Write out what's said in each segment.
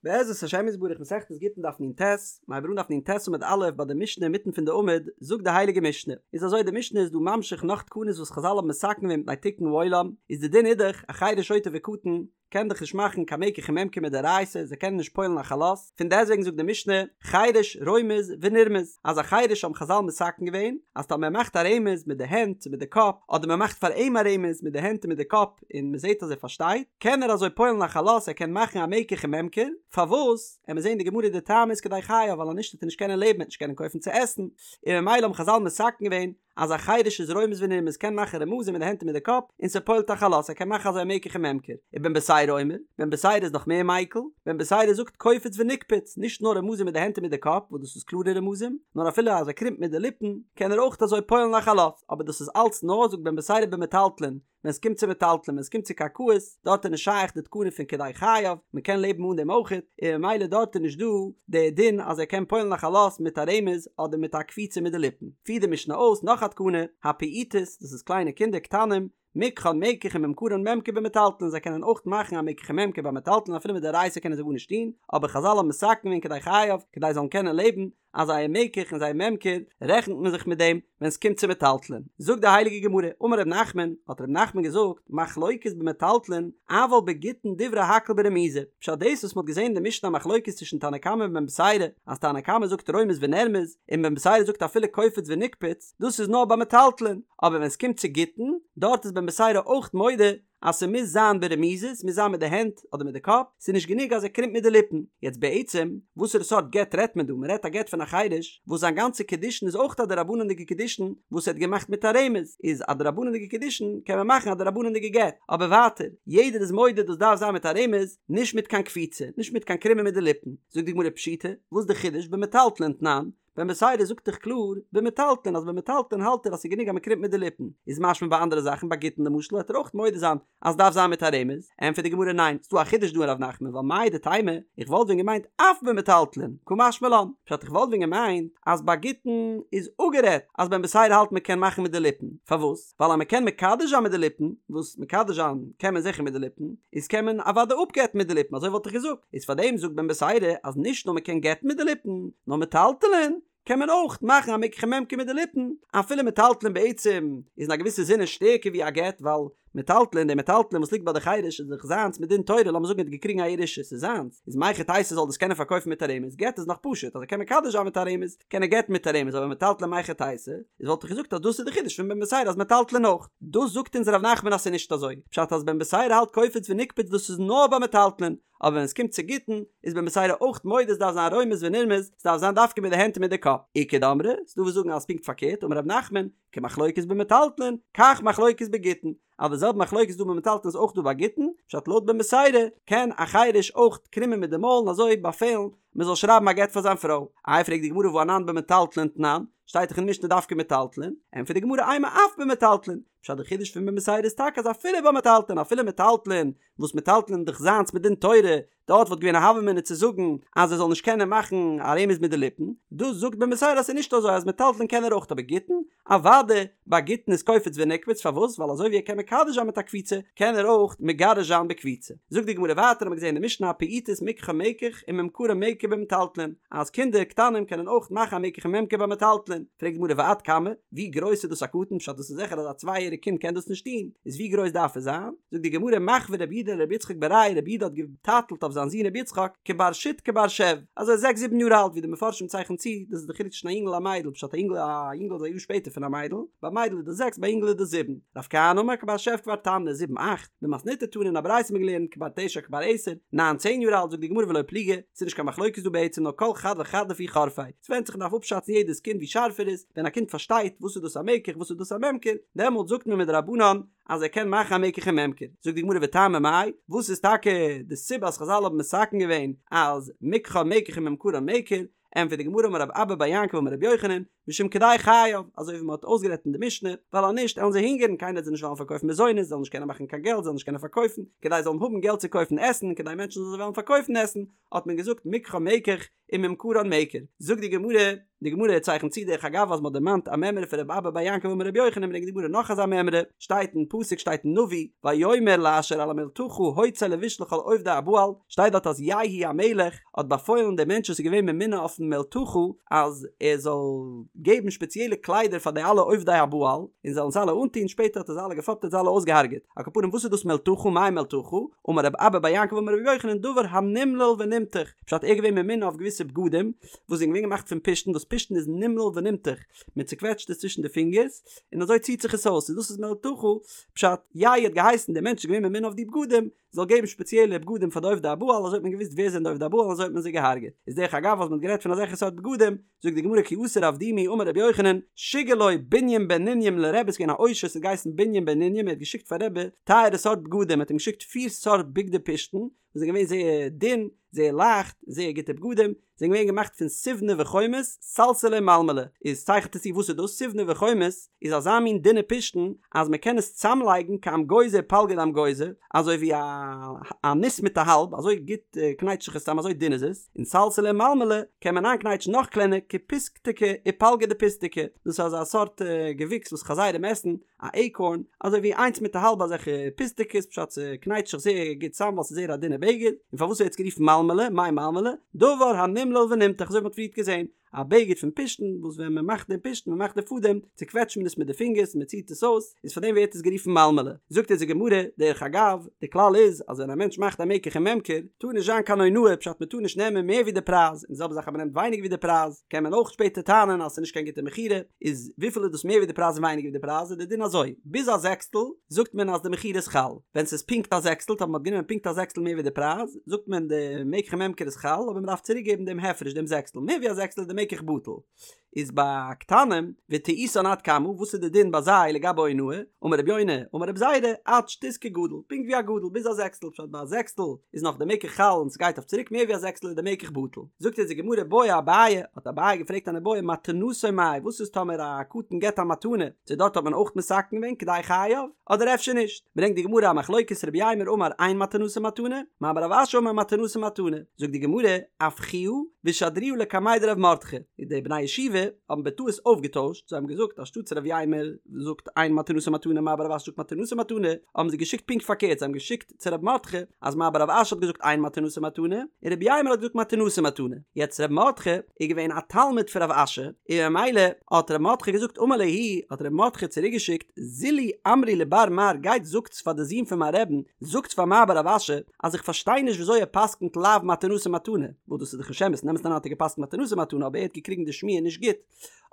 בעזרת השם יתברך מסכת גיטין דף נ"ט, מ'הייבט אן דף נ"ט עמוד א' ביי די משנה אינמיטן פון די עמוד, זאגט די הייליגע משנה, איז אזוי די משנה איז דא ממשיך נאך תקנות וואס חזל האבן מתקן געווען מפני תיקון העולם, איז די דין איז דאך א חרש שוטה וקטן קען דאך נישט מאכן קיין מקח וממכר מדאורייתא, זיי קענען נישט פועל'ן א חלות, פון דעסטוועגן זאגט די משנה, חרש רומז ונרמז, אז א חרש האבן חזל מתקן געווען, אז טאמער ער מאכט א רמז מיט די הענט צו מיט די קאפ, אדער מען מאכט פאר אים א רמז מיט די הענט און מיט די קאפ, און מען זעט אז ער פארשטייט, קען ער אזוי פועל'ן א חלות, ער קען מאכן א מקח וממכר, פארוואס? עמיר זען די גמרא די טעם איז כדי חייו, ווייל אז נישט וועט ער נישט קענען לעבן, ער וועט נישט קענען קויפן צו עסן, און ממילא האבן חזל מתקן געווען אז א חרש איז רומז ונרמז קען מאכן רמזים מיט די הענט און מיט די קאפ, און ס'פועל'ט א חלות, ער קען מאכן אזוי א מקח וממכר. ובן בתירא אומר, בן בתירא איז נאך מער מיקל, בן בתירא זאגט קופץ ונקפץ, נישט נאר רמזים מיט די הענט און מיט די קאפ, וואס דאס איז קלארע רמזים, נאר אפילו אז ער קרימט מיט די ליפן, קען ער אויך אזוי פועל'ן א חלות, אבער דאס איז אלץ נאר, זאגט בן בתירא במטלטלין, ווען ס'קומט צו מטלטלין, ווען ס'קומט צו קרקעות, דארט איז נישט שייך די תקנה פון כדי חייו, מ'קען לעבן אן דעם אויכעט, און ממילא דארט איז נישט דא די דין אז ער קען פועל'ן א חלות מיט א רמז אדער מיט א קפיצה מיט די ליפן. פירט די משנה אויס נאך א תקנה, הפעוטות, דאס איז קליינע קינדער קטנים, מקחן מקח וממכרן ממכר במטלטלין, זיי קענען אויך מאכן א מקח וממכר ביי מטלטלין אפילו מדאורייתא קענען זיי גארנישט טון, אבער חזל האבן מתקן געווען כדי חייו, כדי זיי זאלן קענען לעבן, אז זייער מקח און זייער ממכר רעכנט מען זיך מיט דעם ווען ס'קומט צו מטלטלין. זאגט די הייליגע גמרא, אמר ר' נחמן, האט ר' נחמן געזאגט, מחלוקת במטלטלין, אבל בגיטין דברי הכל ברמיזה, פשט דאס וואס מ'האט געזען אין די משנה א מחלוקת צווישן תנא קמא און בן בתירא, אז תנא קמא זאגט רומז ונרמז, און בן בתירא זאגט אפילו קופץ ונקפץ, דאס איז נאר ביי מטלטלין, אבער ווען ס'קומט צו גיטין, דארט איז בן בתירא אויך מודה אז ס'מוז זיין ברמיזה, ס'מוז זיין מיט די הענט אדער מיט די קאפ, ס'איז נישט גענוג אז ער קרימט מיט די ליפן. יעצט בעצם, וואסערע סארט גט רעדט מען דא? מ'רעדט א גט פון א חירש, וואס זיין גאנצע קידושין איז אויך א דרבנן'דיגע קידושין וואס ער האט געמאכט מיט א רמז, איז א דרבנן'דיגע קידושין קען מען מאכן א דרבנן'דיגע גט, אבער ווייטער, יעדער איז מודה דאס דארף זיין מיט א רמז, נישט מיט קיין קפיצה, נישט מיט קיין קרימען מיט די ליפן. זאגט די גמרא פשיטא, וואס די חידוש במטלטלין תנן? בן בתירא זאגט דאך קלאר במטלטלין אז במטלטלין האלט ער אז ס'איז גענוג אז מ'קרימט מיט די ליפן, איז משמע ביי אנדערע זאכן ביי גיטין למשל וועט ער אויך מודה זיין אז ס'דארף זיין מיט א רמז, ענטפערט די גמרא ניין, ס'דא א חידוש דא אין ר' נחמן ווייל מהו דתימא, איך וואלט ווען געמיינט אף במטלטלין, קא משמע לן, פשט איך וואלט ווען געמיינט אז ביי גיטין איז אפגערעדט אז בן בתירא האלט מ'קען מאכן מיט די ליפן, פארוואס? ווייל אז מ'קען מקדש זיין מיט די ליפן, וואס מקדש זיין קען מען זיכער מיט די ליפן, איז קען מען אוודאי אפגט'ן מיט די ליפן, אזוי וואלט איך געזאגט, איז פארדעם זאגט בן בתירא אז נישט נאר מ'קען גט'ן מיט די ליפן, נאר מטלטלין קען מען אויך מאכן א מקח וממכר מיט די ליפן, אפילו מטלטלין בעצם איז אין א געוויסע זינען שטערקער ווי א גט, ווייל מטלטלין, די מטלטלין וואס ליגט ביי די חירש איז דאך זיינס מדין תורה, לאמיר זאגן ער האט געקריגן א ירושה, ס'איז זיינס, איז מהיכי תיתי זאל דאס קענען פארקויפן מיט א רמז, גט איז נאך פשוט אז ער קען מקדש זיין מיט א רמז, קען ער גט'ן מיט א רמז אבער מטלטלין מהיכי תיתי, איז וואלט איך געזאגט אז דאס איז די חידוש פון בן בתירא אז מטלטלין אויך. דאס זאגט אונז ר' נחמן אז ס'איז נישט אזוי, פשט אז בן בתירא האלט קופץ ונקפץ דאס איז נאר ביי מטלטלין, אבער ווען עס קומט צו גיטין איז בן בתירא אויך מודה ס'דארף זיין רומז ונרמז, ס'דארף זיין דווקא מיט די הענט און מיט די קאפ. איכא דאמרי, ס'דא וואס זאגן אז פונקט פארקערט, אמר ר' נחמן, כמחלוקת במטלטלין, כך מחלוקת בגיטין, אז די זעלבע מחלוקת איז דא ביי מטלטלין איז אויך דא ביי גיטין, פשט לויט בן בתירא קען א חירש אויך קרימען מיט די מויל און אזוי באפעלן מען זאל שרייבן א גט פאר זיין פרוי. איי פרעגט די גמרא והא אנן במטלטלין תנן, שטייט דאך אין משנה דווקא מטלטלין, ענטפערט די גמרא אימא אף במטלטלין, פשט די חידוש פון בן בתירא איז טאקע אז אפילו ביי מטלטלין אפילו מטלטלין וואס מטלטלין איז דאך זיינס מדין תורה דארט וואלט געווען א הוה אמינא צו זאגן אז ער זאל נישט קענען מאכן א רמז מיט די ליפן, דאס זאגט בן בתירא אז ס'איז נישט אזוי אז מטלטלין קען ער אויך אבער גיטין? אוודאי, ביי גיטין איז קופץ ונקפץ פארוואס? ווייל אזוי ווי ער קען מקדש זיין מיט א קפיצה קען ער אויך מגרש זיין בקפיצה. זאגט די גמרא ווייטער האט מען געזען אין די משנה הפעוטות מקחן מקח וממכרן ממכר במטלטלין אז קינדער קטנים קענען אויך מאכן א מקח וממכר ביי מטלטלין, פרעגט די גמרא ועד כמה? ווי גרויס איז דאס א קטן? פשט דאס איז זיכער אז א צוויי יעריג קינד קען דאס נישט טון, איז ווי גרויס דארף עס זיין? זאגט די גמרא מחוי רב יהודה לרבי יצחק בריה רב יהודה האט געטייטלט אויף זיין זון רבי יצחק כבר שית כבר שב אזוי זעקס זיבן יאר אלט ווי די מפרשים צייכענען צו דאס איז די חילוק צווישן א יונגל און א מיידל פשט א יונגל א יונגל איז א יאר שפעטער פון א מיידל ביי מיידל איז דאס זעקס ביי יונגל איז דאס זיבן רב כהנא אמר כבר שב כבר תמני זיבן אכט במתניתא תנא אין א ברייתא האט מען געלערנט כבר תשע כבר עשר ניין צען יאר אלט זאגט די גמרא ולא פליגי ס'איז נישט קיין מחלוקת דא בעצם נאר כל חד וחד לפי חורפיה ס'ווענדט זיך מ'דארף אפשאצן יעדעס קינד ווי שארף ער איז ווען א קינד פארשטייט וואס איז דאס א מקח וואס איז דאס א ממכר דעמאלט זאגט מען מדרבנן אז ער קען מאכן א מקח און ממכר, זאגט די גמרא וטעמא מאי, וואס איז טאקע די סיבה אז חזל האבן מתקן געווען אז מקחן מקח וממכרן ממכר, ענטפערט די גמרא אמר רב אבא בר יעקב אמר רבי יוחנן, משום כדי חייו, אזוי ווי מען האט אויסגערעדט אין די משנה, ווייל אז נישט עלן זיי הונגערן, קיינער וועט זיי נישט וועלן פארקויפן מזונות, זיי זאלן נישט קענען מאכן קיין געלט, זיי זאלן נישט קענען פארקויפן, כדי זיי זאלן האבן געלט צו קויפן עסן, און כדי מענטשן זאלן זיי וועלן פארקויפן עסן, האט מען געזאגט מקחם מקח וממכרן מכר. זאגט די גמרא, די גמרא צייכנט צו דרך אגב אז מען האט דערמאנט א מימרא פון רבי אבא בר יעקב אמר רבי יוחנן ברענגט די גמרא נאך אזא מימרא, שטייט אין פסוק שטייט אין נביא, ויאמר לאשר על המלתחה הוצא לבוש לכל עובדי הבעל, שטייט דארט אז יהוא המלך האט באפוילן דעם מענטש וואס איז געווען ממונה אויפן מלתחה אז ער זאל געבן שפעציעלע קליידער פאר די אלע עובדי הבעל און זאלן זיי אלע אנטון, שפעטער האט ער זיי אלע געפאפט האט זיי אלע אויסגעהארגעט, על כל פנים וואס איז דאס מלתחה מאי מלתחה, אמר רב אבא בר יעקב אמר רבי יוחנן דבר הנמלל ונמתח, פשט ער איז געווען ממונה אויף געוויסע בגדים וואס זענען געווען געמאכט פון פשתן וואס פשתן איז נמלל ונמתח, מען צוקוועטשט עס צווישן די פינגערס און אזוי ציט זיך עס אויס, און דאס איז מלתחה, פשט יהוא האט געהייסן דער מענטש איז געווען ממונה אויף די בגדים, זאל געבן שפעציעלע בגדים פאר די עובדי הבעל אזוי האט מען געוואוסט ווער זענען די עובדי הבעל און אזוי האט מען זיי געהארגעט איז דרך אגב אז מען האט גערעדט פון אזעלכע סארט בגדים זאגט די גמרא כי אתא רב דימי אמר רבי יוחנן שיגר לו בונים בן נונים לרבי ס'איז געווען א עושר ס'האט געהייסן בונים בן נונים ער האט געשיקט פאר רבי טייערע סארט בגדים ער האט אים געשיקט פיר סארט בגדי פשתן וואס זענען געווען זייער דין זייער לייכט זייער גוטע בגדים זענען געווען געמאכט פון סיבנא וחומוס, סלסלא ומלמלא, איז צייכנט עס צו וואס איז דאס סיבנא וחומוס, איז אזא מין דינע פשתן אז מען קען עס צאמלייגן כאמגוזא ופלגא דאמגוזא, אזוי ווי א א ניס מיט א האלב, אזוי גוט קנייטשט זיך עס צאם אזוי דין איז עס, און סלסלא ומלמלא קען מען איינקנייטשן נאך קלענער כפיסתקא ופלגא דפיסתקא, דאס איז אזא סארט געוויקס וואס חזירים עסן, א עיקארן, אזוי ווי איינס מיט א האלב אזעלכע פיסטעקעס, פשט ס'קנייטשט זיך זייער גוט צאם ווייל ס'איז זייער א דינע בגד, און פארוואס ווערט עס גערופן מלמלא, מאי מלמלא? דבר הנמלל ונמתח, אזוי ווי מ'האט פריערט געזען, א בגד פון פשתן, וואס ווען מ'מאכט דעם פשתן, מ'מאכט די פאדעם, צוקוועטשט מען עס מיט די פינגערס און מ'ציט עס אויס, איז פאר דעם ווערט עס גערופן מלמלא. זאגט אונז די גמרא, דרך אגב, די כלל איז, אז ווען א מענטש מאכט א מקח וממכר, טאר נישט זיין קיין אונאה, פשט מ'טאר נישט נעמען מער ווי די פרייז, און די זעלבע זאך אז מ'נעמט ווייניגער ווי די פרייז, קען מען אויך שפעטער טענה'ן אז ס'איז נישט קיין גוטע מכירה, איז וויפיל איז דאס מער ווי די פרייז און ווייניגער ווי די פרייז איז די דין אזוי, ביז א זעקסטל זאגט מען אז די מכירה איז חל, ווען ס'איז פונקט א זעקסטל טאמער מ'האט גענומען פונקט א זעקסטל מער ווי די פרייז, זאגט מען די מקח וממכר איז חל אבער מ'דארף צוריק געבן דעם הפרש דעם זעקסטל, מער ווי א זעקסטל איז די מקח בטל. איז ביי קטנים וטעותן עד כמה, וואס איז די דין ביי זיי לגבי אונאה, אמר רבי יונה, אמר רבי זירא, עד שתית כגדול, פונקט ווי א גדול, ביז א זעקסטל, פשט ביי א זעקסטל איז נאך די מקח חל און ס'גייט אויף צוריק מער ווי א זעקסטל איז די מקח בטל. זאגט אונז די גמרא בעי אביי, האט אביי געפרעגט אן איבעיא מתנתו מאי, וואס איז טאמער א קטן געבט א מתנה, צו דארט האט מען אויך מתקן געווען כדי חייו, אדער אפשר נישט? ברענגט די גמרא א מחלוקת רב יימר אמר אין מתנתו מתנה, מר בר רב אשי אמר מתנתו מתנה, זאגט די גמרא, אפכוה ושדרוה לקמיה דרב מרדכי, די בני ישיבה האבן בטעות אויפגעטוישט, זיי האבן געזאגט אנשטאטס רב יימר זאגט אין מתנתו מתנה מר בר רב אשי זאגט מתנתו מתנה, האבן זיי געשיקט פונקט פארקערט, זיי האבן געשיקט צו רב מרדכי אז מר בר רב אשי האט געזאגט אין מתנתו מתנה און רב יימר האט געזאגט מתנתו מתנה, יעצט רב מרדכי איז געווען א תלמיד פון רב אשי און ממילא האט רב מרדכי געזאגט אמר להו האט רב מרדכי צוריק געשיקט זילו אמרו לבר מר גייט זאגטס פאר די זון פון מיין רעבן זאגטס פאר מר בר רב אשי אז איך פארשטיי נישט וויאזוי ער פסקנט לאו מתנתו מתנה וואס דאס איז דאך נישט אמת אין אמת'ן אריין האט ער געפסקנט מתנתו מתנה אבער ער האט געקריגן די שמועה נישט גוט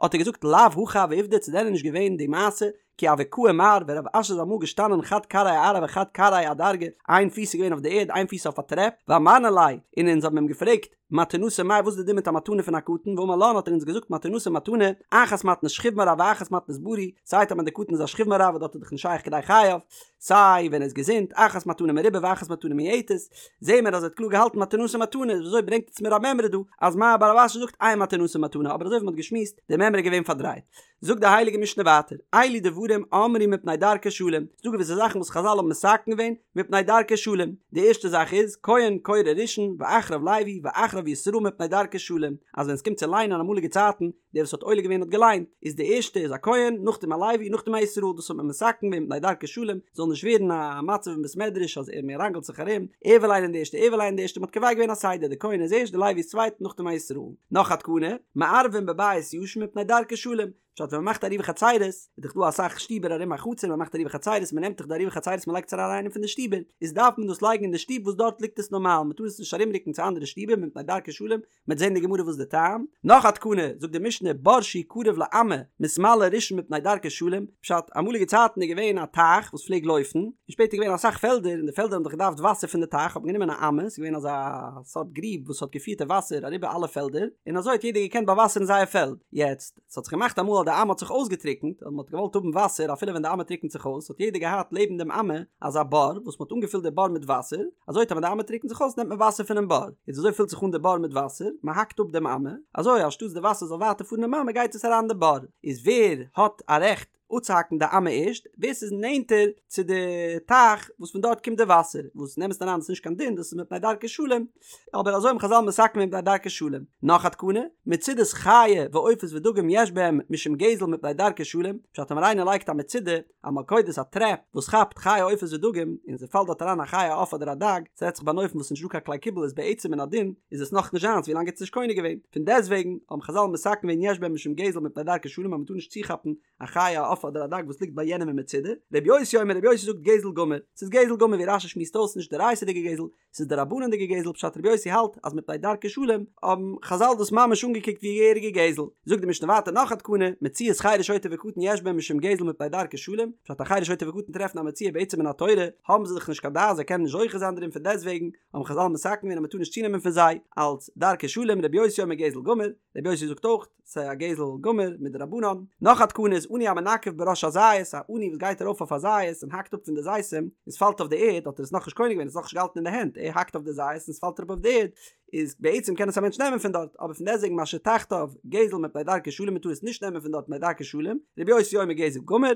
האט ער געזאגט לאו הכי הוה עובדא צו דען איז נישט געווען די מעשה כי הוה קאי מר ווען רב אשי איז אמאל געשטאנען חד כרעיה אארעא וחד כרעיה אדרגא, איין פיס איז געווען אויף די ערד איין פיס אויף א טרעפ, ואמרנא ליה, און אונז האבן אים געפרעגט, מתנתו מאי וואס איז די דין מיט א מתנה פון א קטן, ואמר לן האט ער אונז געזאגט מתנתו מתנה, אחת מתנת שכיב מרע ואחת מתנת בריא, סיי טאמער די קטן איז א שכיב מרע וואס דארט איז דאך נישט שייך כדי חייו, סיי ווען ער איז געזונט, אחת מתנה מרובה ואחת מתנה מועטת, זעהן מיר אז ער האט קלאר געהאלטן מתנתו מתנה, איז וויאזוי ברענגט עטס מיר א מימרא דא אז מר בר רב אשי זאגט אין מתנתו מתנה, אבער אזוי ווי מען האט געשמועסט, די מימרא איז געווען פארדרייט. זאגט די הייליגע משנה ווייטער, אלו דברים אמרו מפני דרכי שלום, ס'דא געוויסע זאכן וואס חזל האבן מתקן געווען מפני דרכי שלום, די ערשטע זאך איז, כהן קורא ראשון ואחריו לוי ואחריו ישראל מפני דרכי שלום, אז ווען ס'קומט צו ליינען אמאליגע צייטן, דער וואס האט עולה געווען האט געליינט, איז די ערשטע איז א כהן, נאכדעם א לוי, נאכדעם א ישראל, דאס האט מען מתקן געווען מפני דרכי שלום, זאל נישט ווערן א מצב אין בית מדרש אז מען ראנגלט זיך ארום, ער וויל ליינען די ערשטע, ער וויל ליינען די ערשטע, מען האט קובע געווען א סדר, די כהן איז ערשט, די לוי איז צווייט, נאכדעם א ישראל. נאך א תקנה, מערבין בבית ישן מפני דרכי שלום, פשט ווען מ'מאכט עירובי חצירות, איז דאך דא אסאך שטיבער ארום א חצר, מ'מאכט עירובי חצירות, מ'נעמט דאך די עירובי חצירות מ'לייגט עס אריין אין איינע פון די שטיבער, איז דארף מען דאס לייגן אין די שטוב וואס דארט ליגט עס נארמאל, מ'טאר עס נישט ארומרוקן צו אנדערע שטיבער מפני דרכי שלום, מ'וועט זען אין די גמרא וואס די טעם. נאך א תקנה, זאגט די משנה, בור שהוא קרוב לאמה, מתמלא ראשון מפני דרכי שלום, פשט, אמאליגע צייטן איז געווען א טייך וואס פלעג לויפן, און שפעטער איז געווען אסאך פעלדער, און די פעלדער האבן דאך געדארפט וואסער פון די טייך, האט מען גענומען א אמה, ס'איז געווען אזא סארט גריב וואס האט געפירט די וואסער אריבער אלע פעלדער, און אזוי האט יעדער געקענט באוואסערן זייער פעלד. יעצט, ס'האט זיך געמאכט אמאל אז די אמה האט זיך אויסגעטריקנט, און מען האט געוואלט האבן וואסער אפילו ווען די אמה טריקנט זיך אויס, האט יעדער געהאט לעבן דעם אמה אזא בור וואס מען האט אנגעפילט די בור מיט וואסער, אזוי טאמער די אמה טריקנט זיך אויס נעמט מען וואסער פונעם בור, איז אזוי פילט זיך אן די בור מיט וואסער, מען האקט אפ דעם אמה, אזוי אנשטאטס די וואסער זאל ווייטער פארן אין אמה גייט עס אריין אין די בור, איז ווער האט א רעכט אפצוהאקן די אמה ערשט, ווער ס'איז נענטער צו די טייך וואס פון דארט קומט די וואסער, וואס אין אמת'ן אריין איז נישט קיין דין דאס איז מפני דרכי שלום, אבער אזוי האבן חזל מתקן געווען מפני דרכי שלום. נאך א תקנה, מצודות חיה ועופות ודגים יש בהם משום גזל מפני דרכי שלום, פשט טאמער איינער לייגט א מצודה, א מלכודת א טרעפ, וואס כאפט חיה עופות ודגים, און ס'פאלט דארט אריין א חיה א עוף אדער א דג, ס'רעדט זיך ביי אן אופן וואס ס'נישט דא קיין כלי קיבול איז בעצם מן הדין איז עס נאך נישט זיינס ווילאנג ער האט עס נישט קונה געווען, פון דעסטוועגן האבן חזל מתקן געווען יש בהם משום גזל מפני דרכי שלום אז מ'טאר נישט צוכאפן א חיה א עוף אדער א דג וואס ליגט ביי יענעם אין מצודה, רבי יוסי אומר רבי יוסי זאגט גזל גמור, ס'איז גזל גמור ווי רש"י שמועסט אויס נישט דאורייתא'דיגע גזל, ס'איז דרבנן'דיגע גזל פשט רבי יוסי האלט אז מפני דרכי שלום האבן חזל דאס ממש אנגעקוקט ווי געהעריגע גזל, זאגט די משנה ווייטער נאך א תקנה, מציאת חרש שוטה וקטן יש בהם משום גזל מפני דרכי שלום, פשט א חרש שוטה וקטן טרעפן א מציאה בעצם מן התורה האבן זיי דאך נישט קיין דעת זיי קענען נישט זוכה זיין דערין פון דעסטוועגן האבן חזל מתקן געווען אז מ'טאר נישט צונעמען פון זיי אלץ דרכי שלום רבי יוסי אומר גזל גמור, רבי יוסי זאגט אויך ס'איז א גזל גמור מדרבנן. נאך א תקנה איז עני המנקף בראש הזית, א עני וואס גייט ארויף אויף א זית און האקט אפ פון די זיתים, און ס'פאלט אויף די ערד, האט ער עס נאכנישט קונה געווען, עס נאכנישט געהאלטן אין די הענט, ער האקט אויף די זית און ס'פאלט אראפ אויף די ערד, איז בעצם קען עס א מענטש נעמען פון דארט, אבער פון דעסטוועגן מה שתחתיו גזל מפני דרכי שלום מ'טאר עס נישט נעמען פון דארט מפני דרכי שלום, רבי יוסי אומר גזל גמור.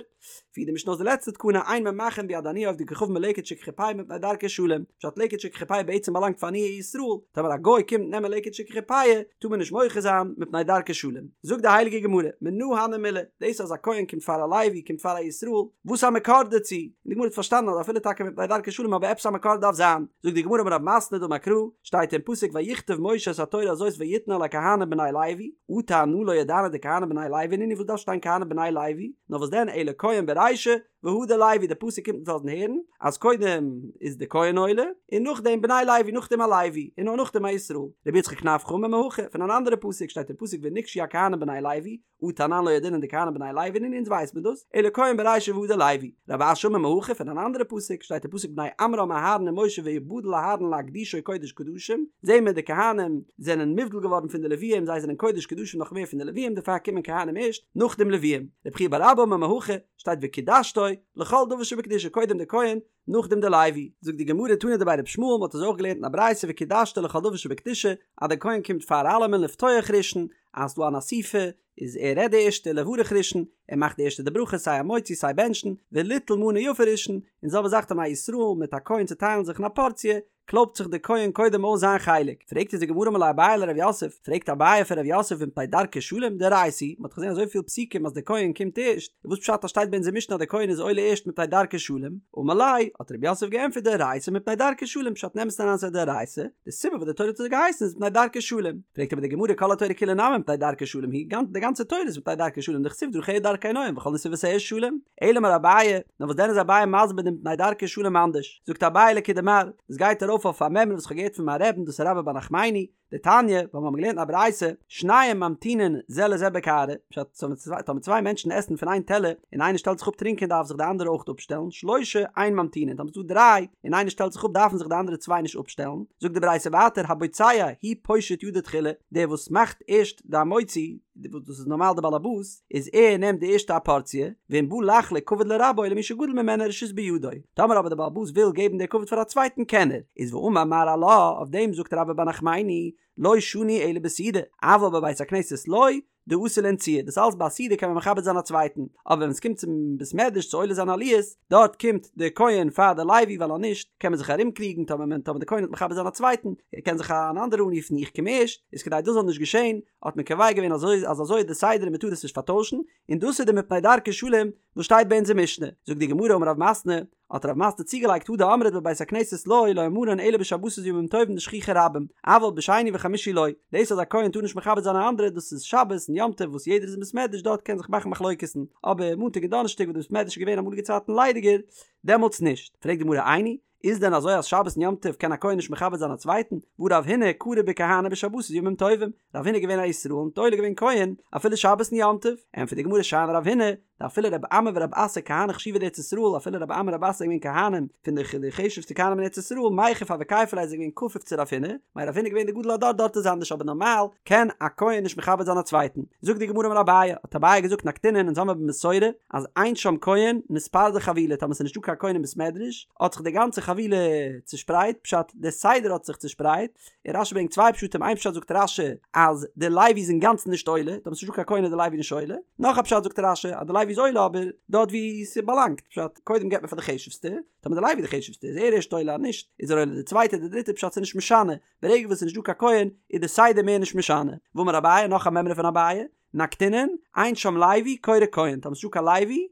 פירט די משנה אויס די לעצטע תקנה אין ממחין ביד עניי עובדי כוכבים בלקט שכחה ופאה מפני דרכי שלום, פשט לקט שכחה ופאה בעצם באלאנגט פאר עניי ישראל, טאמער א גוי קומט נעמען לקט שכחה ופאה טאר מען נישט מוחה זיין מפני דרכי שלום. זאגט די הייליגע גמרא, מנא הני מילי, דאס אז א כהן קומט פאר א לוי קומט פאר א ישראל, וואס א מקור דערצו? און די גמרא האט פארשטאנען אז אפילו טאקע מפני דרכי שלום אבער עפעס א מקור דארף זיין, זאגט די גמרא אמר רב מתנה דאמר קרא, שטייט אין פסוק ויכתב משה את התורה הזאת ויתנה אל הכהנים בני לוי, אטו אנא לא ידענא דכהנים בני לוי נינהו וואס דארף שטיין כהנים בני לוי, נאר וואס דען אלא כהן ברישא והדר לוי די פסוק קומט אונז לאזן הערן אז קודם איז די כהן עולה און נאכדעם בני לוי נאכדעם א לוי און נאר נאכדעם א ישראל, רבי יצחק נפחא אמר מהכא פון אן אנדערע פסוק שטייט אין פסוק ונגשו הכהנים בני לוי אטו אנן לא ידעינן דכהנים בני לוי נינהו אונז ווייסט מען דאס אלא כהן ברישא והדר לוי רב אשי אמר מהכא פון אן אנדערע פסוק שטייט אין פסוק בני עמרם אהרן ומשה ויבדל אהרן להקדישו קודש קדשים זעהן מיר די כהנים זענען מובדל געווארן פון די לוויים זיי זענען קודש קדשים נאך מער פון די לוויים דערפאר קומען כהנים ערשט נאך דעם לוויים רב חייא בר אבא אמר מהכא שטייט וקדשתו לכל דבר שבקדושה קודם די כהן נאכדעם די לוי. זאגט די גמרא תנא דבי רבי ישמעאל מ'האט עס אויך געלערנט אין א ברייתא וקדשתו לכל דבר שבקדושה אז די כהן קומט פאר אלעמען לפתוח ראשון אז ס'דא אן אסיפה איז ער רעדט די ערשטע לברך ראשון ער מאכט די ערשטע די ברכה סיי המוציא סיי בענטשן וליטול מנה יפה ראשון און זעלבע זאך טאמער א ישראל מיט א כהן צוטיילן זיך אין א פארציע קלויבט זיך דער כהן קודם אויס זיין חלק, פרעגט אונז די גמרא אמר ליה אביי לרב יוסף, פרעגט אביי פון רב יוסף ומפני דרכי שלום דאורייתא היא, מען האט געזען אזויפיל פסוקים אז דער כהן קומט ערשט, איז וואס פשט אז שטייט ביי אונזער משנה אז דער כהן איז עולה ערשט מפני דרכי שלום, אמר ליה, האט רב יוסף געענטפערט דאורייתא מפני דרכי שלום, פשט אין אמת'ן אריין ס'איז א דאורייתא, די סיבה וואס די תורה האט אזוי געהייסן איז מפני דרכי שלום, פרעגט אבער די גמרא כל התורה כולה נמי מפני דרכי שלום היא, די גאנצע תורה איז מפני דרכי שלום דכתיב דרכיה דרכי נועם וכל נתיבותיה שלום, אלא אמר אביי, נאר וואס דען איז אביי מסביר דעם מפני דרכי שלום אנדערש? זאגט אביי לכדמר, דאס גייט ארויף אויף א מימרא וואס כ'האב געהערט פון מיין רעבן דאס איז רבה בר נחמני, דתניא, ווייל מיר האבן געלערנט אין א ברייתא, שנים ממתינין זה לזה בקערה, פשט, טאמער צוויי מענטשן עסן פון איין טעלער, און איינער שטעלט זיך אפ טרינקען דארף זיך די אנדערע אויך אפשטעלן, שלושה אין ממתינין, טאמער ס'איז דא דריי, און איינער שטעלט זיך אפ דארפן זיך די אנדערע צוויי נישט אפשטעלן, זאגט די ברייתא ווייטער הבוצע הוא פושט ידו תחילה, דער וואס מאכט ערשט די המוציא, וואס דאס איז נארמאל די באלעבאס, איז ער נעמט די ערשטע א פארציע, ואם בא לחלוק כבוד לרבו למי שגדול ממנו רשות בידו, טאמער אבער די באלעבאס וויל געבן די כבוד פאר א צווייטן קען ער, איז ואמר מר עלה, אויף דעם זאגט רבה בר נחמני, לא שנו אלא בסעודה, אבל בבית הכנסת לא, דאתי לאנצועי, דאס אלץ ביי א סעודה קען מען מכבד זיין א צווייטן, אבער ווען עס קומט צום בית מדרש צו עולה זיין עליות, דארט קומט די כהן פאר די לוי ווייל אז נישט קען מען זיך ארום קריגן טאמער מען טאמער די כהן וועט מכבד זיין א צווייטן קען זיך אן אנדערער אנרופן איך קום ערשט איז כדי דאס זאל נישט געשען האט מען קובע געווען אזוי אז אזוי איז די סדר און מען טאר עס נישט פארטוישן און דאס איז די מפני דרכי שלום וואס שטייט ביי אונזער משנה זאגט די גמרא אמר רב מתנה האט רב מתנה צוגעלייגט הא דאמרת בבית הכנסת לא לא אמרן אלא בשבתות וימים טובים דשכיחי רבים אבל בשני וחמישי לא דאס אז א כהן טאר נישט מכבד זיין א אנדערע דאס איז שבת און יום טוב וואס יעדער איז אין בית מדרש דארט קען זיך מאכן מחלוקת'ן אבער מאנטאג און דאנערשטאג וואס די בית מדרש איז געווען אמאליגע צייטן ליידיגער דעמאלטס נישט פרעגט די גמרא איני איז דען אזוי אז שבת און יום טוב קען א כהן נישט מכבד זיין א צווייטן והא רב הונא קרי בכהני בשבתות וימים טובים רב הונא איז געווען א ישראל און עולה געווען כהן אפילו שבת און יום טוב ענטפערט די גמרא שאני רב הונא. דאפילו רב אמי ורב אסי כהני חשיבי דארץ ישראל אפילו רב אמי רב אסי זענען געווען כהנים פון די חשובסטע כהנים אין ארץ ישראל מיכף הוו כייפי ליה זענען געווען כפוף צו רב הונא, מילא רב הונא איז געווען די גדול הדור דארט איז אנדערש אבער נארמאל קען א כהן נישט מכבד זיין א צווייטן. זאגט די גמרא אמר אביי, האט אביי געזאגט נקטינן אונז האמיר במסורה אז אין שם כהן נתפרדה חבילה טאמער ס'איז נישטא קיין כהן אין בית מדרש האט זיך די גאנצע חבילה צושפרייט פשט די סדר האט זיך צושפרייט און רשי ברענגט צוויי פשטים איין פשט זאגט רשי אז די לוי איז אינגאנצן נישט עולה טאמער ס'איז נישטא קיין כהן איז די לוי נישט עולה נאך א פשט זאגט רשי אז די לוי איז עולה אבער דארט ווי ס'באלאנגט פשט קודם געבט מען פאר די חשובסטע טאמער די לוי איז די חשובסטע איז ער ערשט עולה אז נישט איז ער עולה די צווייטע די דריטע פשט ס'איז נישט משנה ברגע וואס ס'איז נישטא קיין כהן איז די סדר מער נישט משנה ואמר אביי נאך א מימרא פון אביי נקטינן, אין שם לוי קורא כהן, טאמער ס'נישטא קיין לוי,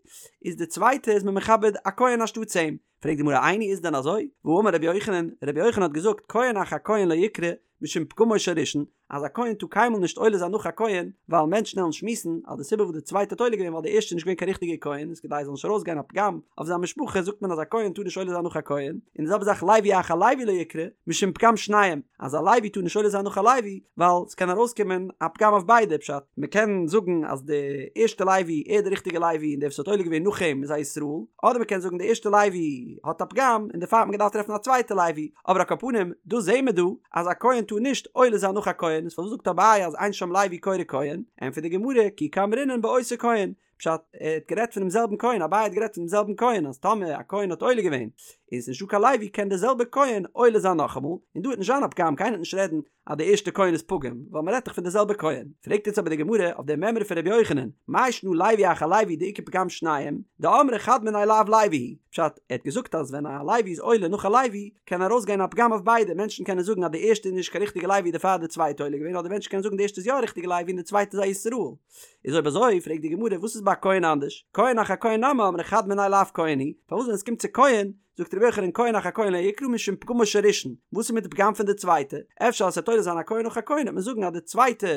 איז די צווייטע איז מען מכבד א כהן אנשטאטס אים. פרעגט די גמרא איני איז דען אזוי? והאמר רבי יוחנן, רבי יוחנן האט געזאגט כהן אחר כהן לא יקרא משום פגמו של ראשון, אז א כהן טאר קיינמאל נישט עולה זיין נאך א כהן, ווייל מענטשן וועלן שמועסן אז די סיבה וואס די צווייטע האט עולה געווען ווייל די ערשטע איז נישט געווען קיין ריכטיגע כהן, איז כדי עס זאל נישט ארויסגיין א פגם אויף זיין משפחה זאגט מען אז א כהן טאר נישט עולה זיין נאך א כהן, און די זעלבע זאך לוי אחר לוי לא יקרא משום פגם שניהם, אז א לוי טאר נישט עולה זיין נאך א לוי, ווייל ס'קען ארויסקומען א פגם אויף ביידע, פשט, מ'קען זאגן אז די ערשטע לוי ער איז די ריכטיגע לוי און דער וואס האט עולה געווען נאך אים איז א ישראל, אדער מ'קען זאגן די ערשטע לוי האט א פגם און דערפאר האט מען געדארפט טרעפן א צווייטע לוי, אבער על כל פנים דא זעהן מיר דא אז א כהן טאר נישט עולה זיין נאך א כהן, איז פארוואס זאגט אביי אז אין שם לוי קורא כהן? ענטפערט די גמרא, כי קאמרינן באותו כהן, פשט, ער האט גערעדט פונעם זעלבן כהן, אביי האט גערעדט פונעם זעלבן כהן, אז טאמער א כהן האט עולה געווען, און ס'איז נישטא קיין לוי, קען דער זעלבער כהן עולה זיין נאכאמאל, און דא וועט נישט זיין א פגם, קיינער וועט נישט רעדן אז דער ערשטער כהן איז פגום, ווייל מ'רעדט דאך פון דער זעלבער כהן. פרעגט יעצט אבער די גמרא אויף דער מימרא פון רבי יוחנן, מאי שנא לוי אחר לוי דאיכא פגם שניהם, דאמרי חד מינייהו לאו לוי הוא, פשט, ער האט געזאגט אז ווען א לוי איז עולה נאך א לוי, קען ארויסגיין א פגם אויף ביידע, מענטשן קענען זאגן אז די ערשטע איז נישט קיין ריכטיגע לוי דערפאר האט די צווייטע עולה געווען, אדער מענטשן קענען זאגן די ערשטע איז יא א ריכטיגע לוי און די צווייטע איז א ישראל. איז אויב אזוי פרעגט די גמרא וואס איז ביי כהן אנדערש, כהן אחר כהן נמי אמרי חד מינייהו לאו כהן הוא, פארוואס ווען עס קומט צו כהן זאגט רבי יוחנן כהן אחר כהן לא יקרא משום פגמו של ראשון, וואס איז מיט די פגם פון די צווייטע, אפשר אז ס'וועט עולה זיין א כהן נאך א כהן וועט מען זאגן אז די צווייטע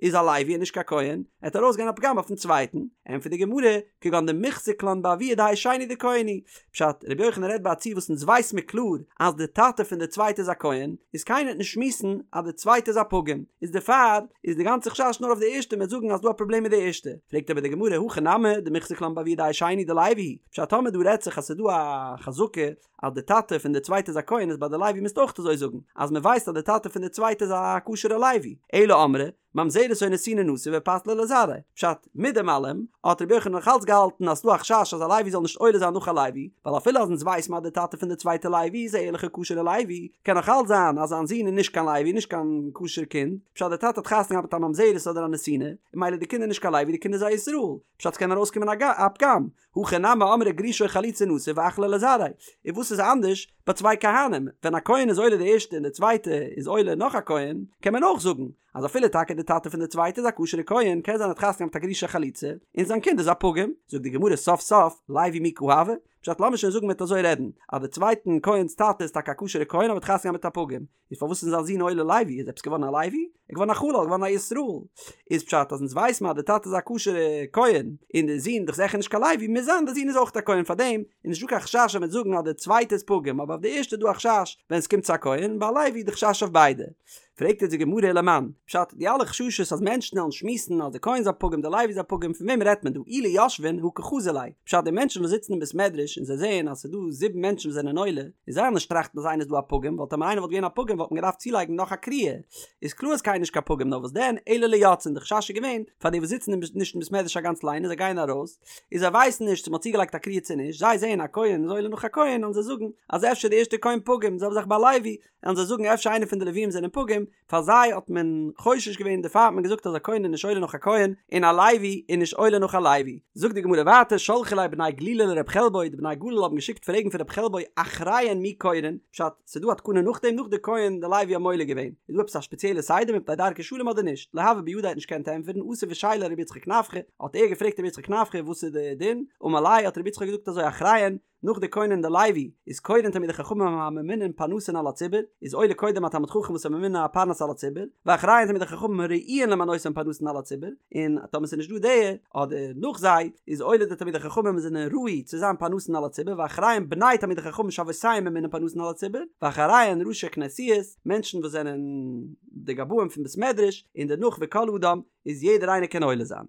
איז א לוי און נישט קיין כהן, עט ארויסגיין א פגם אויפן צווייטן, ענטפערט די גמרא, כגון דמיחזקן לן באבוה דהאי שני דכהן הוא, פשט, רבי יוחנן רעדט ביי א ציור וואס אונז ווייס מיר קלאר אז די טאטע פון די צווייטע איז א כהן, איז קיינער וועט נישט שמועסן אז די צווייטע איז א פגום, איז דערפאר איז די גאנצע חשש נאר אויף די ערשטע מ'וועט זאגן אז דא א פראבלעם מיט די ערשטע, פרעגט אבער די גמרא הכא נמי דמיחזקן לן באבוה דהאי שני דלוי הוא, פשט טאמער דא רעדט זיך אז ס'איז דא א חזקה אז די טאטע פון די צווייטע איז א כהן איז ביי די לוי מוזטו אויך אזוי זאגן אז מ'ווייסט אז די טאטע פון די צווייטע איז א כשר'ע לוי, אלא אמרי ממזרת או נתינה נשא ופסליה לזרעיה. פשט, מיט דעם אלעם, האט רבי יוחנן נאך אלץ געהאלטן אז ס'דא א חשש אז א לוי זאל נישט עולה זיין נאך א לוי, ווייל אפילו אז אונז ווייסן אז די טאטע פון די צווייטע לוי איז א ערליכע כשר'ע לוי, קען נאך אלץ זיין אז זיין זון איז נישט קיין לוי, נישט קיין כשר קינד, פשט די טאטע האט חתונה געהאט מיט א ממזרת אדער א נתינה, און ממילא די קינד איז נישט קיין לוי, די קינד איז א ישראל, פשט ס'קען ארויסקומען א פגם, הכא נמי אמרי גרושה או חלוצה נשא ואחליה לזרעיה, און וואס איז אנדערש ביי צוויי כהנים, ווען א כהן איז עולה די ערשטע און די צווייטע איז עולה נאך א כהן, קען מען אויך זאגן אז אפילו טאקע די טאטע פון די צווייטע איז א כשר'ע כהן, קען זיין ער האט חתונה געהאט מיט א גרושה חלוצה, און זיין קינד איז א פגום, זאגט די גמרא סוף סוף, לוי מי קא הוי, פשט לאמיר שוין זאגן מ'וועט אזוי רעדן, אז די צווייטן כהן'ס טאטע איז טאקע א כשר'ע כהן אבער האט חתונה געהאט מיט א פגום, איז פארוואס איז זיין זון עולה לוי? איז עפעס געווארן א לוי? ער איז געווארן א חלל, געווארן א ישראל. איז פשט אז אונז ווייס מען אז די טאטע איז א כשר'ע כהן, און די זון דאך זיכער נישט קיין לוי, מוז זיין די זון איז אויך א כהן פארדעם איז נישטא קיין חשש אז מ'וועט זאגן אז די צווייטע איז פגום, אבער אויף די ערשטע איז דא א חשש ווען עס קומט צו א כהן, ביי א לוי איז די חשש אויף ביידע. פרעגט יעצט די גמרא ולמאן, פשט, די אלע חששות אז מענטשן וועלן שמועסן אז די כהן איז א פגום די לוי איז א פגום פון וועם רעדט מען דא אי ליושבין הא קחזי ליה, פשט די מענטשן וואס זיצן אין בית מדרש און זיי זעען אז ס'איז דא זיבן מענטשן וואס זענען עולה, און זיי וועלן נישט טראכטן אז איינער איז דא א פגום ווייל טאמער איינער וואלט געווען א פגום וואלט מען געדארפט צולייגן נאך א קריאה, איז קלאר אז קיינער נישט קיין פגום נאר וואס דען אלא ליוצאין די חשש איז געווען פאר די וואס זיצן נישט אין בית מדרש א גאנץ ליינען זיי גייען ארויס און זיי ווייסן נישט צו מ'האט צוגעלייגט א קריאה צו נישט זיי זעען א כהן איז עולה נאך א כהן וועלן זיי זאגן אז אפשר די ערשטע כהן פגום זעלבע זאך ביי לוי וועלן זיי זאגן אפשר איינער פון די לווים זענען פגום, פאר זיי האט מען חושש געווען דערפאר האט מען געזאגט אז א כהן איז נישט עולה נאך א כהן און א לוי איז נישט עולה נאך א לוי. זאגט די גמרא ווייטער שלחו ליה בני גלילא לרב חלבו, די בני גליל האבן געשיקט פרעגן פון רב חלבו אחריהן מי קורין, פשט, ס'איז דא א תקנה נאכדעם נאך די כהן די לוי האבן עולה געווען, איז דא עפעס א שפעציעלע סדר מפני דרכי שלום אדער נישט, לא הוה בידיה האט נישט געקענט ענטפערן אתא ושייליה לרבי יצחק נפחא, האט ער געפרעגט רבי יצחק נפחא וואס איז די דין, אמר ליה האט רבי יצחק געזאגט אזוי אחריהן, נאך די כהן און די לוי איז קורין תלמידי חכמים הממונין פרנסין על הציבור, איז עולה קודם א תלמיד חכם וואס איז ממונה א פרנס על הציבור, ואחריהן תלמידי חכמים הראויין למנותן פרנסין על הציבור, און טאמער ס'איז נישט דא די, אדער נאך זיי, איז עולה די תלמידי חכמים וואס זענען ראוי צו זיין פרנסין על הציבור, ואחריהן בני תלמידי חכמים שאבותיהם ממונין פרנסין על הציבור, ואחריהן ראשי כנסיות, מענטשן וואס זענען די גבאים פון בית מדרש, און דערנאך וכל אדם, איז יעדער איינער קען עולה זיין.